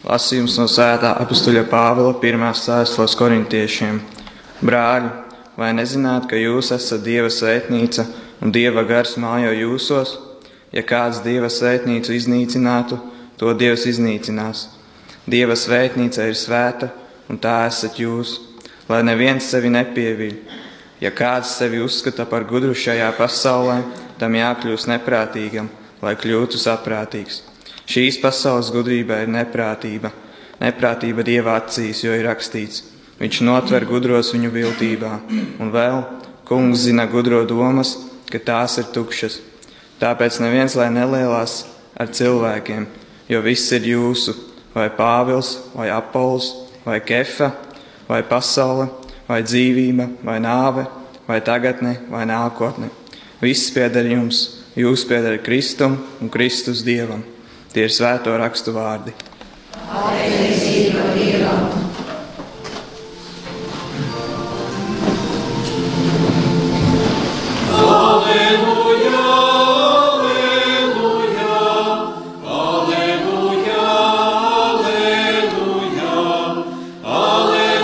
Lasījums no svētā apustuļa Pāvila 1. vēstules korintiešiem. Brāļi, vai nezināt, ka jūs esat Dieva svētnīca un Dieva gars mājo jūsos? Ja kāds Dieva svētnīcu iznīcinātu, to Dievs iznīcinās. Dieva svētnīca ir svēta, un tā esat jūs, lai neviens sevi nepieviļ. Ja kāds sevi uzskata par gudru šajā pasaulē, tam jākļūst neprātīgam, lai kļūtu saprātīgs. Šīs pasaules gudrība ir neprātība. Neprātība Dieva acīs, jo ir rakstīts: viņš notver gudros viņu viltībā. Un vēl, Kungs zina gudro domas, ka tās ir tukšas. Tāpēc neviens lai nelielās ar cilvēkiem, jo viss ir jūsu, vai Pāvils, vai Apols, vai Kefa, vai pasaule, vai dzīvība, vai nāve, vai tagadne, vai nākotne. Viss pieder jums, jūs pieder Kristum un Kristus Dievam. Tie ir svēto rakstu vārdi. Pateicība Dievam! Alleluja, alleluja, alleluja, alleluja, alleluja,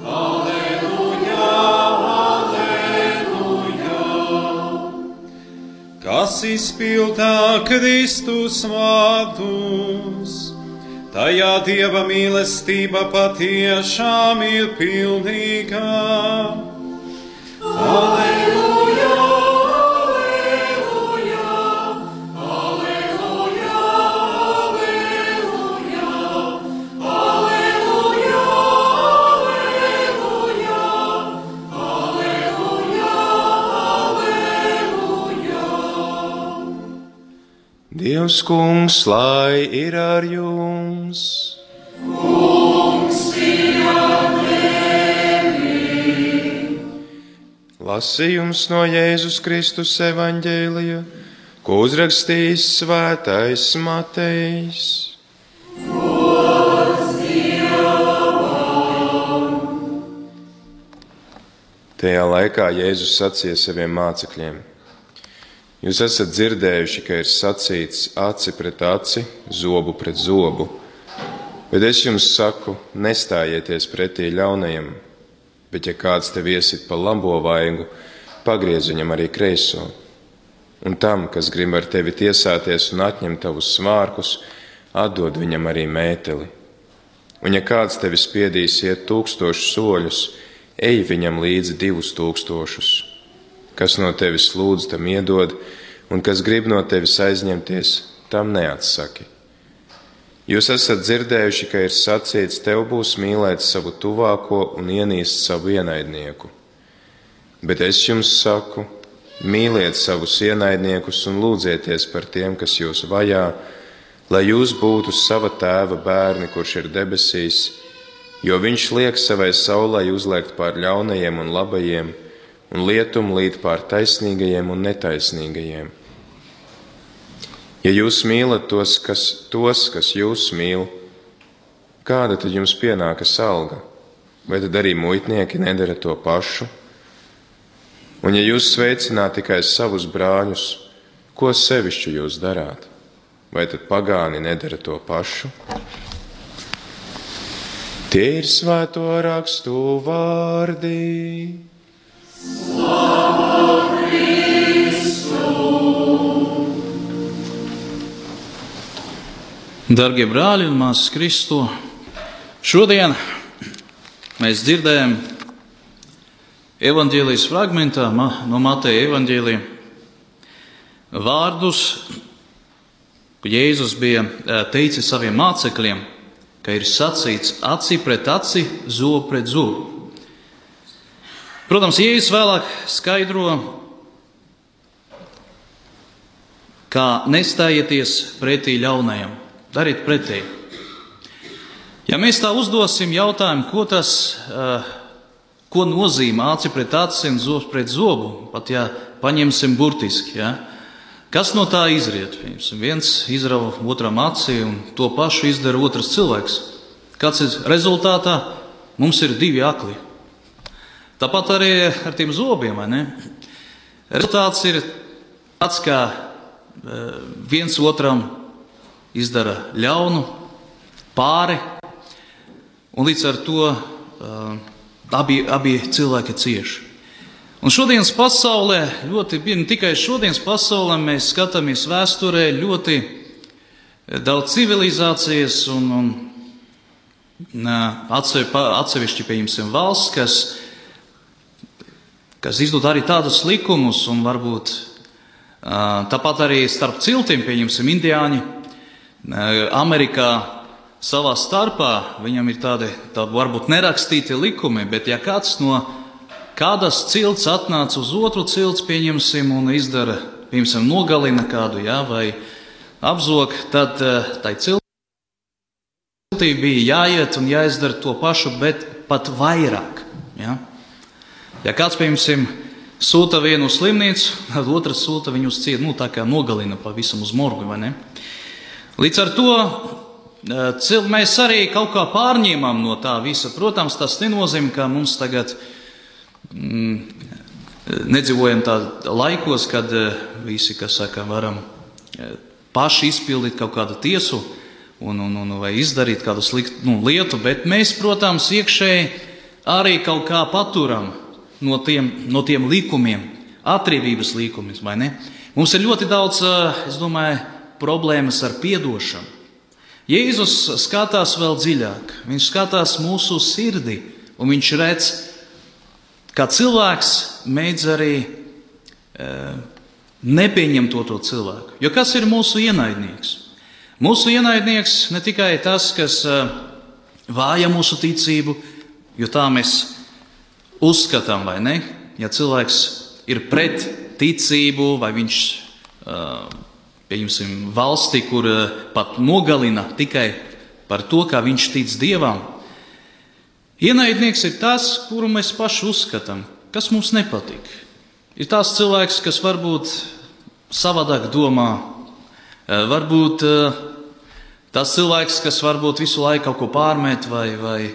alleluja, alleluja, alleluja. Kas izpildā Kristus vārdus, tajā Dieva mīlestība patiešām ir pilnīga. Alleluja, alleluja, alleluja, alleluja, alleluja, alleluja, alleluja, alleluja. Dievs Kungs, lai ir ar jums! Kungs ir ar tevi! Lasījums no Jēzus Kristus evaņģēlija, ko uzrakstījis svētais Matejs. Tajā laikā Jēzus sacīja saviem mācekļiem: jūs esat dzirdējuši, ka ir sacīts aci pret aci, zobu pret zobu, bet es jums saku, nestājieties pretī ļaunajam, bet ja kāds tev iesit pa labo vaigu, pagriez viņam arī kreiso. Un tam, kas grib ar tevi tiesāties un atņemt tavus svārkus, atdod viņam arī mēteli. Un ja kāds tevi spiedīs iet 1000 soļus, ej viņam līdzi 2000. Kas no tevis lūdz, tam iedod, un kas grib no tevis aizņemties, tam neatsaki. Jūs esat dzirdējuši, ka ir sacīts, tev būs mīlēt savu tuvāko un ienīst savu ienaidnieku. Bet es jums saku, mīliet savus ienaidniekus un lūdzieties par tiem, kas jūs vajā, lai jūs būtu sava tēva bērni, kurš ir debesīs, jo viņš liek savai saulei uzliekt pār ļaunajiem un labajiem, un lietum līt pār taisnīgajiem un netaisnīgajiem. Ja jūs mīlat tos, kas jūs mīl, kāda tad jums pienākas alga? Vai tad arī muitnieki nedara to pašu? Un ja jūs sveicināt tikai savus brāļus, ko sevišķi jūs darāt? Vai tad pagāni nedara to pašu? Tie ir svēto rakstu vārdi. Slavu Kristu! Dargie brāļi un māsas Kristu, šodien mēs dzirdējam evaņģēlijas fragmentā no Mateja evaņģēlija vārdus, ko Jēzus bija teicis saviem mācekļiem, ka ir sacīts aci pret aci, zobu pret zobu. Protams, Jēzus vēlāk skaidro, kā nestājieties pretī ļaunajam, dariet pretī. Ja mēs tā uzdosim jautājumu, ko nozīmē aci pret aci un zobs pret zobu, pat ja paņemsim burtiski, ja? Kas no tā izriet? Viens izrauj otram aci un to pašu izdara otrs cilvēks. Kāds ir rezultātā? Mums ir 2 akli. Tāpat arī ar tiem zobiem, vai ne? Rezultāts ir tāds, kā viens otram izdara ļaunu, pāri, un līdz ar to abi cilvēki cieši. Un šodienas pasaulē, ne tikai šodienas pasaulē, mēs skatāmies vēsturē ļoti daudz civilizācijas un atsevišķi, pieņemsim, valsts, kas izdod arī tādus likumus, un varbūt tāpat arī starp ciltiem, pieņemsim, indiāņi, Amerikā savā starpā, viņam ir tādi varbūt nerakstīti likumi, bet ja kāds no kādas cilts atnāca uz otru cilts, pieņemsim, un izdara, pieņemsim, nogalina kādu, vai apzog, tad tai ciltī bija jāiet un jāizdara to pašu, bet pat vairāk. Ja kāds, pieņemsim, sūta vienu uz slimnīcu, tad otrs sūta viņu uz cietu, tā kā nogalina pavisam uz morgu, vai ne? Līdz ar to mēs arī kaut kā pārņēmām no tā visa. Protams, tas nenozīmē, ka mums tagad nedzīvojam tādā laikos, kad visi, kas saka, varam paši izpildīt kaut kādu tiesu vai izdarīt kādu sliktu lietu, bet mēs, protams, iekšēji arī kaut kā paturam no tiem likumiem, atriebības likumiem, vai ne? Mums ir ļoti daudz, es domāju, problēmas ar piedošanu. Jēzus skatās vēl dziļāk, viņš skatās mūsu sirdī, un viņš redz, kā cilvēks mēdz arī nepieņemt to cilvēku. Jo kas ir mūsu ienaidnieks? Mūsu ienaidnieks ne tikai tas, kas vāja mūsu ticību, jo tā mēs uzskatām, vai ne? Ja cilvēks ir pret ticību, vai viņš, pieņemsim, valsti, kur pat nogalina tikai par to, kā viņš tic Dievam. Ienaidnieks ir tas, kuru mēs paši uzskatām, kas mums nepatīk. Ir tās cilvēks, kas varbūt savādāk domā, varbūt tas cilvēks, kas varbūt visu laiku kaut ko pārmet vai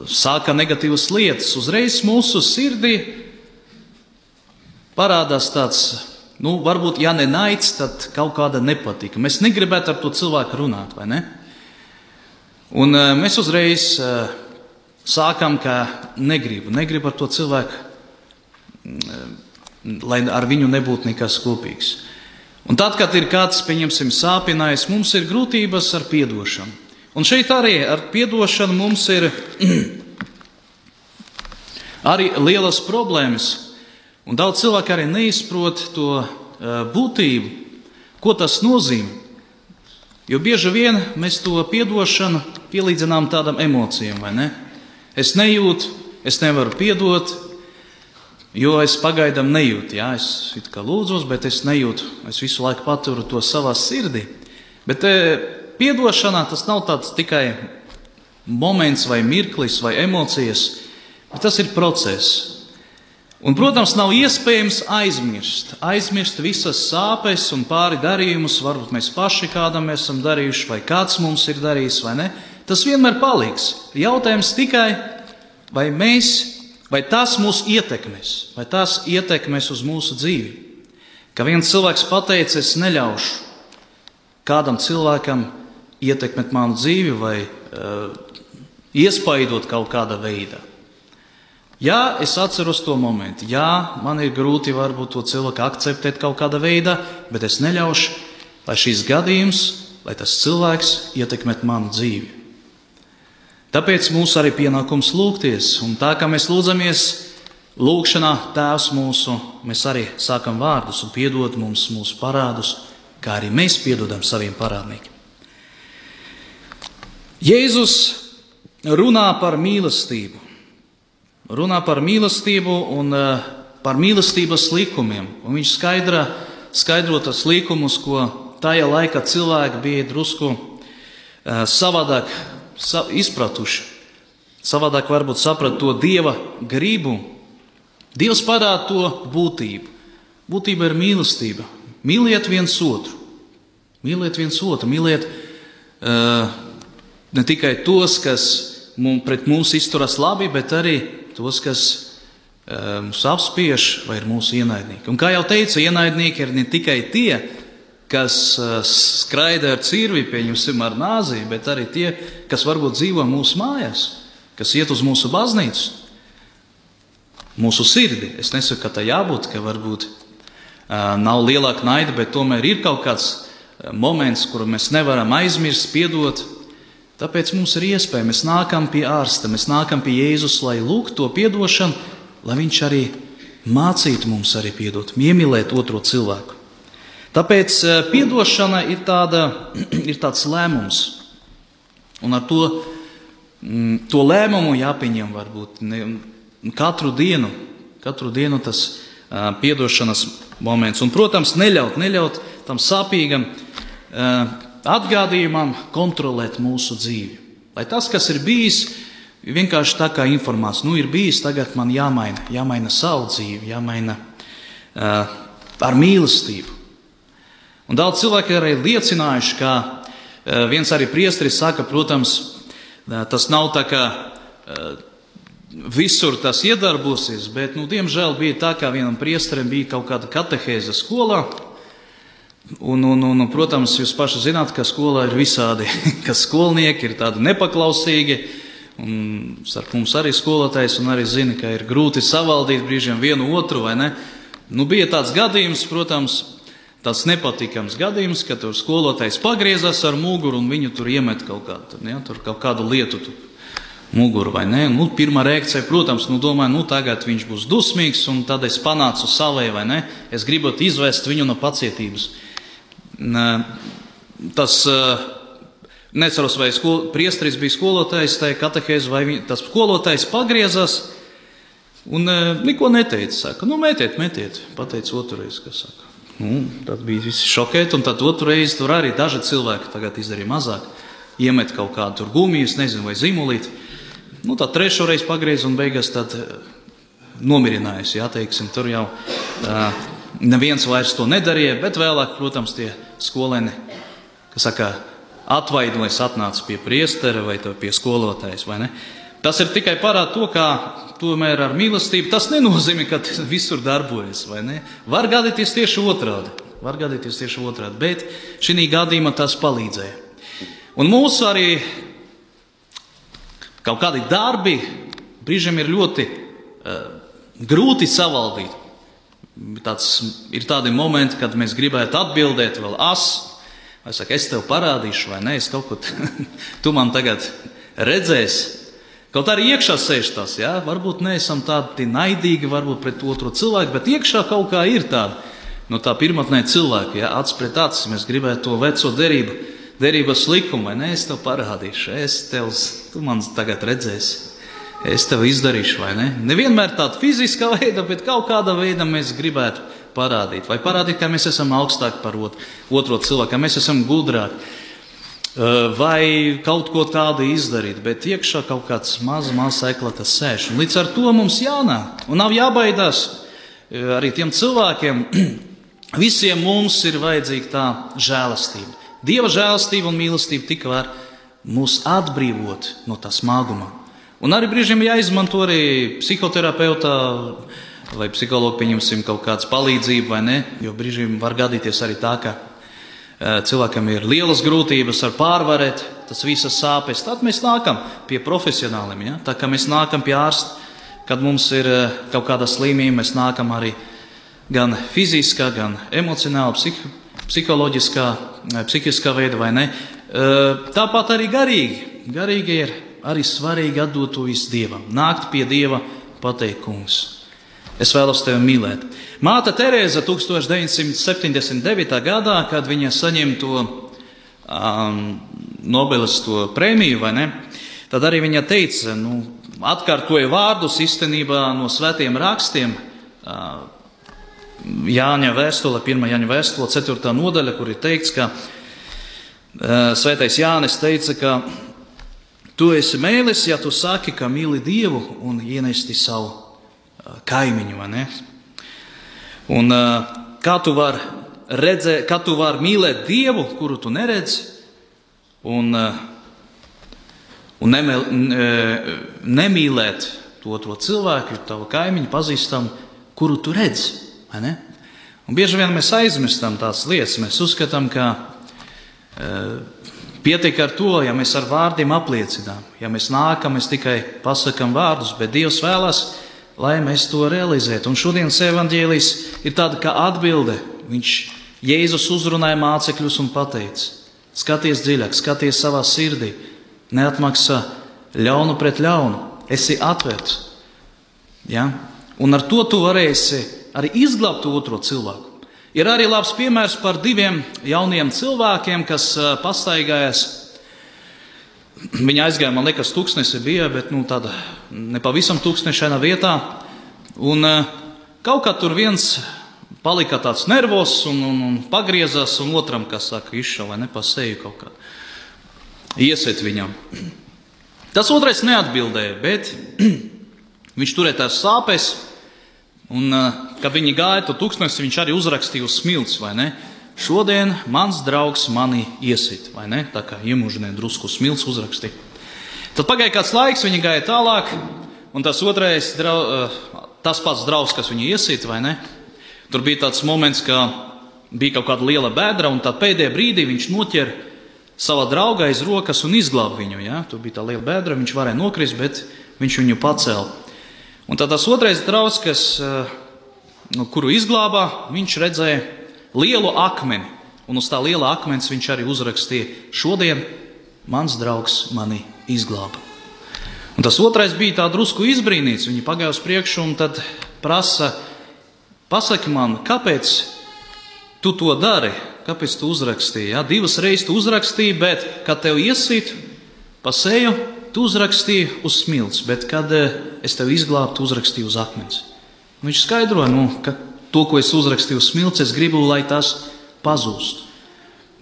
sāka negatīvas lietas. Uzreiz mūsu sirdī parādās tāds, varbūt, ja ne naids, tad kaut kāda nepatika. Mēs negribētu ar to cilvēku runāt, vai ne? Un mēs uzreiz sākam, ka negribu ar to cilvēku, lai ar viņu nebūtu nekas kopīgs. Un tad, kad ir kāds, pieņemsim, sāpinājis, mums ir grūtības ar piedošanu. Un šeit arī ar piedošanu mums ir arī lielas problēmas. Un daudz cilvēku arī neizprot to būtību, ko tas nozīmē. Jo bieži vien mēs to piedošanu pielīdzinām tādām emocijām, vai ne? Es nejūtu, es nevaru piedot, jo es pagaidām nejūtu. Es it kā lūdzos, bet es nejūtu. Es visu laiku paturu to savā sirdī. Bet piedošanā tas nav tāds tikai moments vai mirklis vai emocijas, bet tas ir process. Un, protams, nav iespējams aizmirst visas sāpes un pāri darījumus, varbūt mēs paši kādam esam darījuši, vai kāds mums ir darījis, vai ne. Tas vienmēr paliks. Jautājums tikai, vai tas mūs ietekmēs, vai tas ietekmēs uz mūsu dzīvi. Ka viens cilvēks pateica, es neļaušu kādam cilvēkam ietekmēt manu dzīvi vai iespaidot kaut kādā veidā. Jā, es atceros to momentu. Jā, man ir grūti varbūt to cilvēku akceptēt kaut kādā veidā, bet es neļaušu, lai šīs gadījums, lai tas cilvēks ietekmēt manu dzīvi. Tāpēc mums arī pienākums lūgties. Un tā kā mēs lūdzamies lūgšanā Tēvs mūsu, mēs arī sākam vārdus un piedod mums mūsu parādus, kā arī mēs piedodam saviem parādniekiem. Jēzus runā par mīlestību. Runā par mīlestību un par mīlestības likumiem. Un viņš skaidro tas likumus, ko tajā laikā cilvēki bija drusku savādāk izpratuši. Savādāk varbūt saprat to Dieva gribu. Dievs parāda to būtību. Būtība ir mīlestība. Mīliet viens otru. Mīliet viens otru. Mīliet ne tikai tos, kas pret mums izturas labi, bet arī tos, kas mūs apspiež vai ir mūsu ienaidnieki. Un kā jau teicu, ienaidnieki ir ne tikai tie, kas skraida ar cirvi, pieņemsim ar nāzi, bet arī tie, kas varbūt dzīvo mūsu mājās, kas iet uz mūsu baznīcu, mūsu sirdi. Es nesaku, ka tā jābūt, ka varbūt nav lielāka naida, bet tomēr ir kaut kāds moments, kuru mēs nevaram aizmirst, piedot. Tāpēc mums ir iespēja, mēs nākam pie ārsta, mēs nākam pie Jēzus, lai lūgtu to piedošanu, lai viņš arī mācītu mums arī piedot, iemīlēt otro cilvēku. Tāpēc piedošana ir tāds lēmums. Un ar to lēmumu jāpieņem varbūt katru dienu tas piedošanas moments. Un, protams, neļaut tam sāpīgam atgādījumam kontrolēt mūsu dzīvi. Lai tas, kas ir bijis, vienkārši tā kā informācija, ir bijis, tagad man jāmaina savu dzīvi, jāmaina ar mīlestību. Un daudz cilvēki arī liecinājuši, ka viens arī priesteris saka, protams, tas nav tā kā visur tas iedarbosies, bet, diemžēl bija tā, kā vienam priesterim bija kaut kāda katehēze skolā. Un, protams, jūs paši zināt, ka skolā ir visādi, ka skolnieki ir tādi nepaklausīgi, un starp mums arī skolotājs, un arī zina, ka ir grūti savaldīt brīžiem vienu otru, vai ne? Bija tāds gadījums, protams, tāds nepatīkams gadījums, ka tur skolotājs pagriezās ar muguru, un viņu tur iemet kaut kādu lietu muguru, vai ne? Pirmā reakcija, protams, domāju, tagad viņš būs dusmīgs, un tad es panācu savai, vai ne? Es gribot izvest viņu no pacietības. Tas, neceros, vai priesteris bija skolotājs, tai katehēze, vai tas skolotājs pagriezās, un neko neteica, saka, metiet, pateica otrais, kas saka. Tad bija visi šokēti, un tad otrais tur arī daži cilvēki tagad izdarīja mazāk, iemet kaut kādu tur gumijas, nezinu, vai zimulīti. Tad trešo reizi pagriez un beigās tad nomirinājās, teiksim, tur jau neviens vairs to nedarīja, bet vēlāk, protams, tie skolēni, kas saka, atvaidojas, atnāca pie priestera vai pie skolotājas, vai ne? Tas ir tikai parāda to, kā tomēr ar mīlestību, tas nenozīmē, ka visur darbojas, vai ne? Var gadīties tieši otrādi, bet šī gadījumā tas palīdzēja. Un mūsu arī kaut kādi darbi brīžiem ir ļoti grūti savaldīt. Ir tādi momenti, kad mēs gribētu atbildēt vēl vai saka, es tev parādīšu, vai ne, es kaut ko, tu man tagad redzēsi. Kaut arī iekšā sēž tas, varbūt neesam tādi naidīgi, varbūt pret otru cilvēku, bet iekšā kaut kā ir tāda, tā pirmotnē cilvēki, acs pret acis, mēs gribētu to veco derības likumu, vai ne, es tev parādīšu, tu man tagad redzēsi, es tev izdarīšu, vai ne? Nevienmēr tāda fiziskā veida, bet kaut kāda veida mēs gribētu parādīt, vai parādīt, ka mēs esam augstāki par otro cilvēku, ka mēs esam gudrāki, vai kaut ko tādu izdarīt, bet iekšā kaut kāds maz eklata sēž. Un līdz ar to mums jānāk, un nav jābaidās arī tiem cilvēkiem, visiem mums ir vajadzīga tā žēlastība. Dieva žēlastība un mīlestība tik var mūs atbrīvot no tā smaguma. Un arī brīžiem jāizmanto arī psihoterapeitā vai psihologu, pieņemsim, kaut kāds palīdzību, vai ne? Jo brīžiem var gadīties arī tā, ka cilvēkam ir lielas grūtības ar pārvarēt tas visas sāpes. Tad mēs nākam pie profesionāliem, tā kā mēs nākam pie ārsta, kad mums ir kaut kāda slimība, mēs nākam arī gan fiziskā, gan emocionāli, psihiskā veida, vai ne? Tāpat arī garīgi. Garīgi ir arī svarīgi atdot to visu Dievam. Nākt pie Dieva, pateikt, Kungs, es vēlos tevi mīlēt. Māte Terēza 1979. gadā, kad viņa saņem to Nobeles to prēmiju, vai ne? Tad arī viņa teica, atkārtoja vārdus īstenībā no svētiem rakstiem, Jāņa vēstule, 1. Jāņa vēstule, 4. nodaļa, kur ir teikts, ka svētais Jānis teica, ka tu esi mēlis, ja tu saki, ka mīli Dievu un ienesti savu kaimiņu, vai ne? Un kā tu vari mīlēt Dievu, kuru tu neredzi, un nemīlēt to otro cilvēku, tavu kaimiņu, pazīstam, kuru tu redzi, vai ne? Un bieži vien mēs aizmirstam tās lietas, mēs uzskatām, ka pietiek ar to, ja mēs ar vārdiem apliecinām, ja mēs nākam, mēs tikai pasakam vārdus, bet Dievs vēlas, lai mēs to realizētu. Un šodienas evaņģēlijs ir tāda kā atbilde. Jēzus uzrunāja mācekļus un pateica: skaties dziļāk, skaties savā sirdī, neatmaksā ļaunu pret ļaunu, esi atvērts. Ja? Un ar to tu varēsi arī izglābt otro cilvēku. Ir arī labs piemērs par 2 jauniem cilvēkiem, kas pastaigājas. Viņi aizgāja, man liekas, tūkstnesi bija, bet tāda nepavisam tūkstnešaina vietā. Un kaut kā tur viens palika tāds nervos un pagriezās, un otram, kas saka, izšauja, vai ne, pa seju kaut kā. Iesiet viņam. Tas otrais neatbildēja, bet viņš turēja tās sāpes, un kad viņi gāja to tūkstnesi, viņš arī uzrakstīja uz smilts, vai ne? Šodien mans draugs mani iesit, vai ne? Tā kā iemužināja drusku smilts uzrakstīja. Tad pagāja kāds laiks, viņi gāja tālāk, un tas otrais, tas pats draugs, kas viņu iesit, vai ne? Tur bija tāds moments, ka bija kaut kāda liela bēdra, un tad pēdējā brīdī viņš noķer savā draugā aiz rokas un izglāb viņu. Ja? Tur bija tā liela bēdra, viņš varēja nokrist, bet viņš viņu pacēla. Un tad tas otrais draugs, kuru izglābā, viņš redzēja lielu akmeni. Un uz tā liela akmens viņš arī uzrakstīja: šodien mans draugs mani izglāba. Un tas otrais bija tā drusku izbrīnīts. Viņi pagāja uz priekšu un tad prasa: pasaki man, kāpēc tu to dari? Kāpēc tu uzrakstīji? Ja? 2 reizes tu uzrakstīji, bet kad tev iesīt pa seju, tu uzrakstīji uz smilts, bet kad es tev izglābu, tu uzrakstīji uz akmens. Viņš skaidroja, ka to, ko es uzrakstīju uz smilts, es gribu, lai tas pazūst.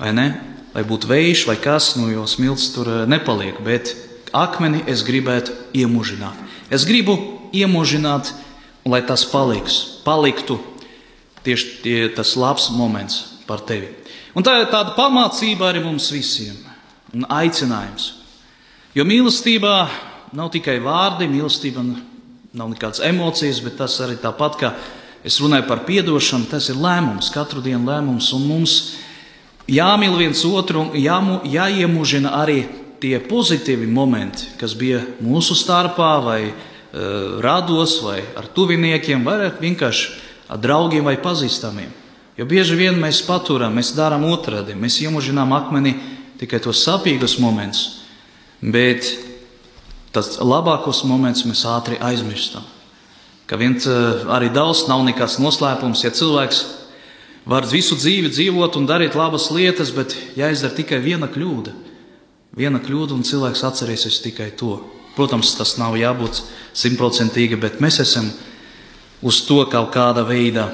Vai ne? Lai būtu vējš vai kas, jo smilts tur nepaliek, bet akmeni es gribētu iemužināt. Es gribu iemužināt, un lai tas paliktu tieši tas labs moments par tevi. Un tā ir tāda pamācība arī mums visiem un aicinājums. Jo mīlestībā nav tikai vārdi, mīlestība nav nekādas emocijas, bet tas arī tāpat, kā es runāju par piedošanu, tas ir lēmums, katru dienu lēmums, un mums jāmīl viens otru, jāiemužina arī tie pozitīvi momenti, kas bija mūsu starpā, vai rados, vai ar tuviniekiem, vai vienkārši ar draugiem vai pazīstamiem. Jo bieži vien mēs paturam, mēs darām otrādi, mēs iemužinām akmeni tikai tos sapīgus momentus, bet tas labākos momentus mēs ātri aizmirstam. Ka arī daudz nav nekāds noslēpums, ja cilvēks var visu dzīvi dzīvot un darīt labas lietas, bet jāizdara tikai viena kļūda, un cilvēks atcerēsies tikai to. Protams, tas nav jābūt 100%, bet mēs esam uz to kaut kāda veida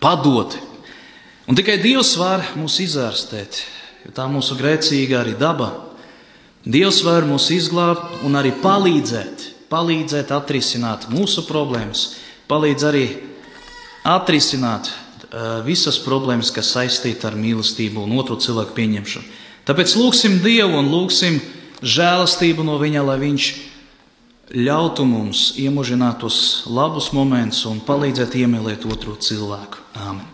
padoti. Un tikai Dievs var mūs izārstēt, jo tā mūsu grēcīga arī daba. Dievs var mūs izglābt un arī palīdzēt atrisināt mūsu problēmas, palīdz arī atrisināt visas problēmas, kas saistīta ar mīlestību un otru cilvēku pieņemšanu. Tāpēc lūgsim Dievu un lūgsim žēlastību no Viņa, lai Viņš ļautu mums iemužināt tos labus momentus un palīdzēt iemīlēt otru cilvēku. Āmen.